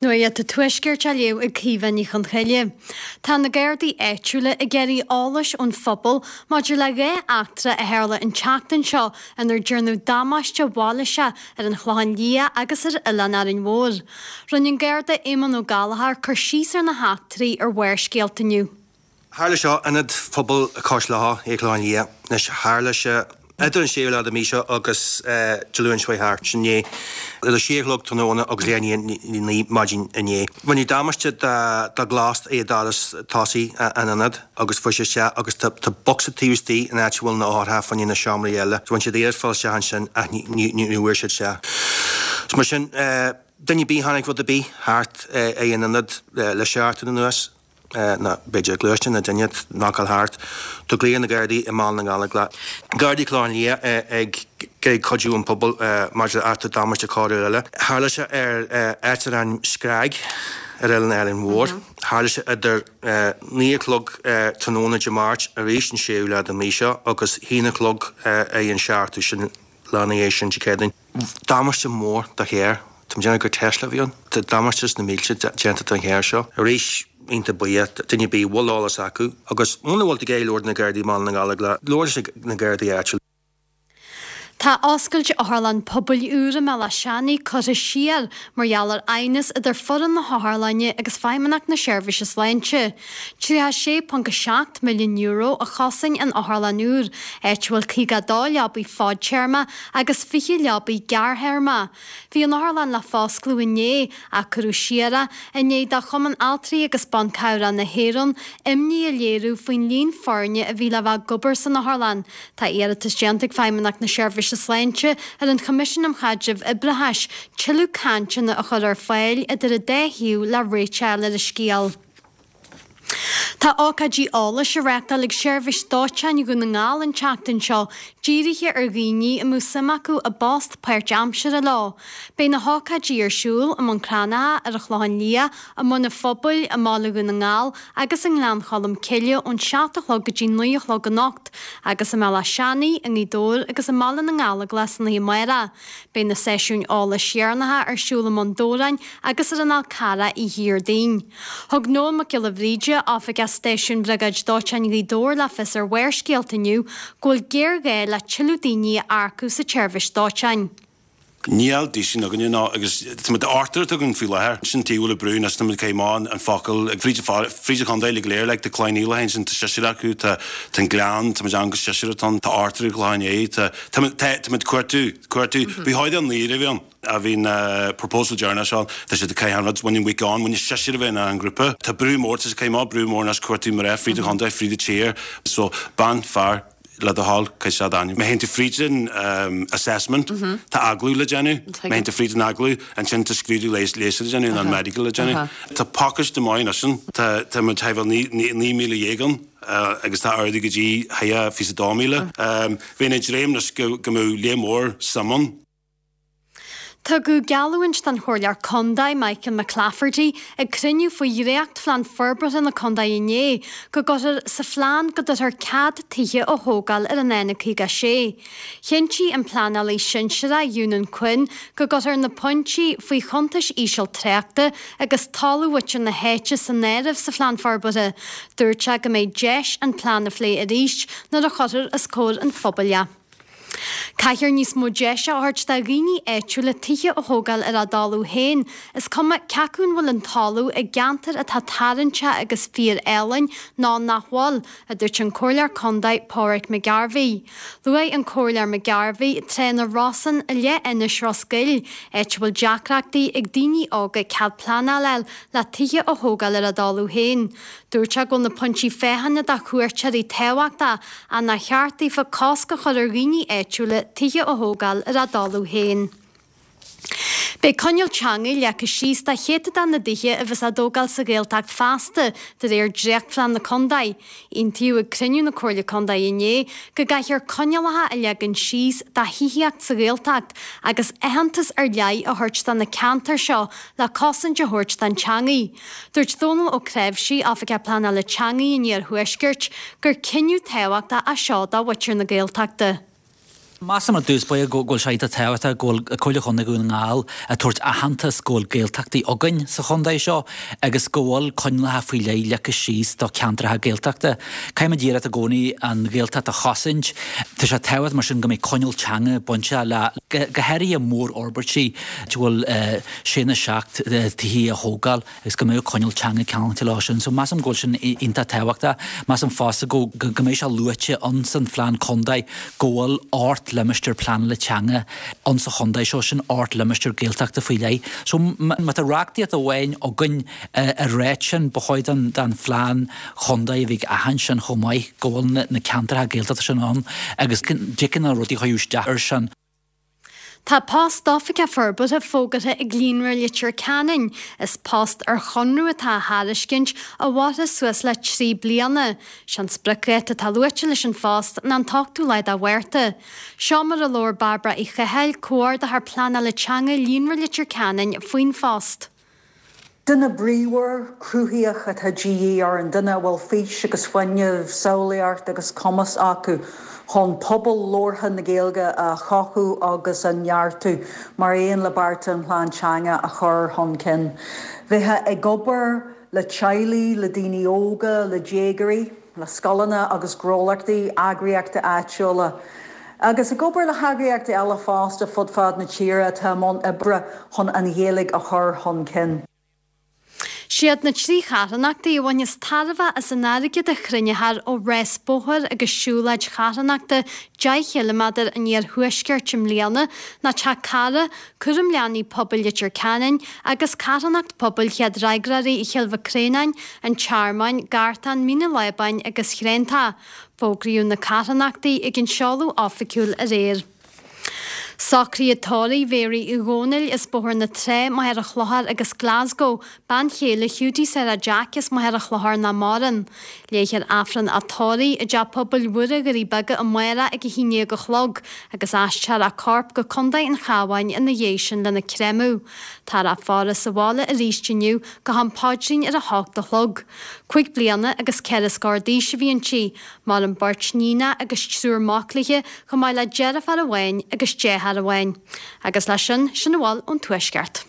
Nuacht an Tuaiscirt á léamh ag Caoimhe Ní Chonchoille. Tá na Gardaí áitiúla ag iarraidh eolais ón phobal maidir le 2 eachtra a tharla an tseachtain seo inar déanadh damáiste mhailíseach ar an Chlochán Liath agus ar Oileán Árainn Mhór. Rinne an Garda Éamonn Ó Gallchóir cur síos ar na heachtraí ar Bharrscéalta inniu. Tharla seo in Ionad Phobail Cois Locha, ar an Chlochán Liath. Anois, tharla sé idir an séú lá de mhí seo agus Dé Luain seo chuaigh thart, sin inné, idir a sé a chlog tráthnóna agus leath i ndiaidh a 9 maidin inné. Rinneadh damáiste do ghlas ag doras tosaigh an ionaid agus fuair sé isteach agus tá bocsa taobh istigh in áit a bhfuil na eochracha fá choinne na seomraí eile. So rinne siad iarracht fáil isteach ansin ach ní bhfuair siad isteach. So mar sin, duine ar bith a chonaic rud ar bith thart ag an ionad le seachtain anuas, nó b'fhéidir gluaisteán nó duine ag knockáil thart. Tá glaoch ar na Gardaí i mBaile na nGallóglach. Gardaí Chlochán Liath ag iarraidh cuidiú ón pobal maidir le eachtra damáiste coiriúil eile. Tharla sé ar áit dar ainm Screig ar Oileán Árainn Mhór. Tharla sé idir 9 a chlog tráthnóna Dé Máirt arís an séú lá den mhí seo agus haon a chlog ar an seachtú sin lá ina dhiaidh sin Dé Céadaoin. Damáiste mór do charr. Tá mé ag déanamh gur Tesla a bhí ann. Tá damáiste sna mílte déanta don charr seo. Arís, iontach buíoch, duine ar bith a bhfuil eolas acu agus muna bhfuil tú ag iarraidh labhairt na Gardaí i mBaile na nGallóglach, labhair leis na Gardaí áitiúil. Tá oscailt Otharlann Pobail úr i mBéal Átha Seanaidh curtha siar mar gheall ar aighneas idir foireann na hotharlainne agus Feidhmeannacht na Seirbhíse Sláinte. €36.7 milliún a chosain an otharlann úr, áit a bhfuil 52 leabaidh fadtéarma agus 20 leabaidh gearrthéarma. Bhí an otharlann le foscladh inné ach cuireadh siar é i ndiaidh do Chumann Altraí agus Ban Cabhrach na hÉireann imní a léiriú faoin líon foirne a bhí le bheith ag obair san otharlann. Tá iarratas déanta ag Feidhmeannacht na Seirbhíse Sláinte ar an Choimisiún um Chaidreamh Oibreachais tuilleadh cainteanna a chur ar fáil idir an dá thaobh le réiteach a fháil ar an scéal. Tá ócáidí eolais á reáchtáil ag Seirbhís Dóiteáin Dhún na nGall an tseachtain seo, dírithe ar dhaoine a mbeadh suim acu i bpost páirtaimseartha leo. Beidh na hócáidí ar siúl i mBun Cranncha, ar an Chlochán Liath, i mBun an Phobail, i mBaile Dhún na nGall agus i nGleann Cholm Cille ón 7 a chlog go dtí 9 a chlog anocht, agus i mBéal Átha Seanaidh, i nGaoth Dobhair agus i mBaile na nGallóglach san oíche amárach. Beidh na seisiúin eolais dheireanacha ar siúl i mBun Dobhráin agus ar an Fhál Carrach oíche Dhéardaoin. Thug Noel Mac Giolla Bhríde, Oifigeach Stáisiúin Bhriogáid Dóiteáin Ghaoth Dobhair le fios ar Bharrscéalta inniu go bhfuil géarghá le tuilleadh daoine a earcú sa tseirbhís dóiteáin. Níl daoine againne ná agus tá muid ochtar atá againn faoi láthair. Sin taobh le brú anois tá muid caith amach an focal ag fríd fríd an chontae uilig go léir like tá Cloich Cheann Fhaola ansin tá seisear acu tá tá an Gleann tá muid ann go seisear atá ann tá ochtar ag Clochán Liath tá tá muid tá tá muid cuartú cuartú bhí thóid an naoire a bhí ann. a bhí na proposal deireanach seo, tá siad ag caitheamh an rud, bhain an week on, bhain seisear a bheith in an grúpa. Tá brú mór, tá siad ag caitheamh amach brú mór anois cuartú mná fríd an chontae, fríd an tír. So, bean, fear, le do thoil, caithfidh siad ainm. Má théann tú fríd an assessment, tá agallamh le déanamh, má théann tú fríd an agallamh, ansin tá scrúdú leighis le déanamh, nó an medical le déanamh. Tá pacáiste maith anois ann, tá, tá muid thar 19,000 ann agus tá ardú go dtí thar 22,000. Bheinn ag dréim anois go mbeadh lear mór suim ann. Tugadh geallúint don Chomhairleoir Contae, Michael McClafferty, ag cruinniú faoi dhréachtphlean forbartha na contae inné, go gcuirfear sa phlean go dtabharfar cead tithe a thógáil ar an N56. Chinntigh an pleanálaí sinsearach Eunan Quinn go gcuirfear na pointí faoi chuntais íseal tráchta agus toiliú mhuintir na háite san áireamh sa phlean forbartha. Dúirt sé go mbeidh deis an plean a phlé arís nuair a chuirfear os comhair an phobail é. Caithfear níos mó deise a thabhairt do dhaoine áitiúla tithe a thógáil ar a dtalamh féin, is cuma cé acu an bhfuil an talamh i gceantar atá tarraingteach agus fíor-álainn nó nach bhfuil, a dúirt an Comhairleoir Contae Pauric McGarvey. Luaigh an Comhairleoir McGarvey Trá na Rosann i Leithinis Ros Goill, áit a bhfuil deacrachtaí ag daoine óga cead pleanála a fháil le tithe a thógáil ar a dtalamh féin. Dúirt sé go bhfuil na pointí féachana do chuairteoirí tábhachtach ach nár cheart daofa cosc a chur ar dhaoine áitiúla tithe a thógáil ar a dtalamh féin. Beidh coinníoll teanga leagtha síos do chéatadán na dtithe a bheas á dtógáil sa Ghaeltacht feasta, de réir dréachtphlean na contae. Aontaíodh ag cruinniú na Comhairle Contae inné go gcaithfear coinníollacha a leagan síos do thithíocht sa Ghaeltacht agus aitheantas ar leith a thabhairt do na ceantair seo le cosaint a thabhairt don teangaidh. Dúirt Dónal Ó Cnáimhsí, Oifigeach Pleanála Teangaidh an Iarthuaiscirt, gur cinneadh tábhachtach é seo do mhuintir na Gaeltachta. Measaim ar dtús báire go bhfuil sé iontach tábhachtach go bhfuil Comhairle Chontae Dhún na nGall ag tabhairt aitheantas go bhfuil Gaeltachtaí againn sa chontae seo agus go bhfuil coinníollacha faoi leith leagtha síos do cheantracha Gaeltachta. Caithfimid iarracht i gcónaí an Ghaeltacht a chosaint. Tá sé tábhachtach mar sin go mbeidh coinníoll teanga bainteach le, go háirithe mórfhorbairtí a bhfuil sé nó 7 tithe á thógáil. agus go mbeadh coinníoll teanga ceangailte leo sin. So measaim go bhfuil sin iontach tábhachtach. Measaim fosta go go mbeidh sé luaite ann san phlean contae go bhfuil 8 limistéar pleanála teanga ann sa chontae seo, sin 8 limistéar Gaeltachta faoi leith. So má tá reachtaíocht amháin againn ag ráit sin, ba chóir don don phlean chontae a bheith ag aithint sin chomh maith, go bhfuil na ceantracha Gaeltachta sin ann agus dtiocfaidh na rudaí a chuireadh isteach air sin. Tá post d'Oifigeach Forbartha fógartha ag Líonra Leitir Ceanainn. Is post ar chonradh atá á thairiscint a mhairfidh suas le 3 bliana. Sé an spriocdháta atá luaite leis an phost ná an t-ochtú lá de Mhárta. Seo mar a labhair Bairbre Uí Chathail, Comhordaitheoir Pleanála Teanga Líonra Leitir Ceanainn faoin phost. Duine bríomhar, cruthaíoch atá de dhíth orainn, duine a bhfuil fís agus fuinneamh, samhlaíocht agus cumas acu chun pobal labhartha na Gaeilge a chothú agus a neartú, mar aon le bearta an Phlean Teanga a chur chun cinn. Bheifeá ag obair le teaghlaigh, le daoine óga, le déagóirí. le scoileanna agus gnólachtaí, eagraíochtaí áitiúla, agus ag obair le heagraíochtaí eile fosta fud fad na tíre atá i mbun oibre chun an Ghaeilge a chur chun cinn. Siad na 3 charthanachtaí a bhainfeas tairbhe as an airgead a chruinneofar ó rás bóthair agus siúlóid charthanachta 10 chiliméadar an Iarthuaiscirt i mbliana ná Teach Cara, Cúram Leanaí Pobail Leitir Ceanainn agus Carthanacht Pobail Chéad Fhreagróirí Chill Mhic Réanáin, an Tearmainn, Gartán, Mín an Lábáin agus Thréantach. Fógraíodh na carthanachtaí ag an seoladh oifigiúil aréir. Socruithe tórraimh Mhéaraí Uí Dhónaill as Bóthar na Trá, Machaire Chlochair agus Glasgow, bean chéile Hiúdaí Sarah Jack as Machaire Chlochair nach maireann. Léifear Aifreann a tórraimh i dTeach Pobail Mhuire Dhoirí Beaga amárach ag 11 a chlog agus aistreofar a corp go Contae an Chabháin ina dhiaidh sin lena créamadh. Táthar á faire sa bhaile arís inniu go ham paidrín ar a hocht a chlog. Cuig bliana agus ceithre scór d'aois a bhí inti. Maireann beirt níonacha agus triúr mac léi chomh maith le deirfiúr amháin agus deartháir amháin. Agus leis sin, sin a bhfuil ón Tuaisceart.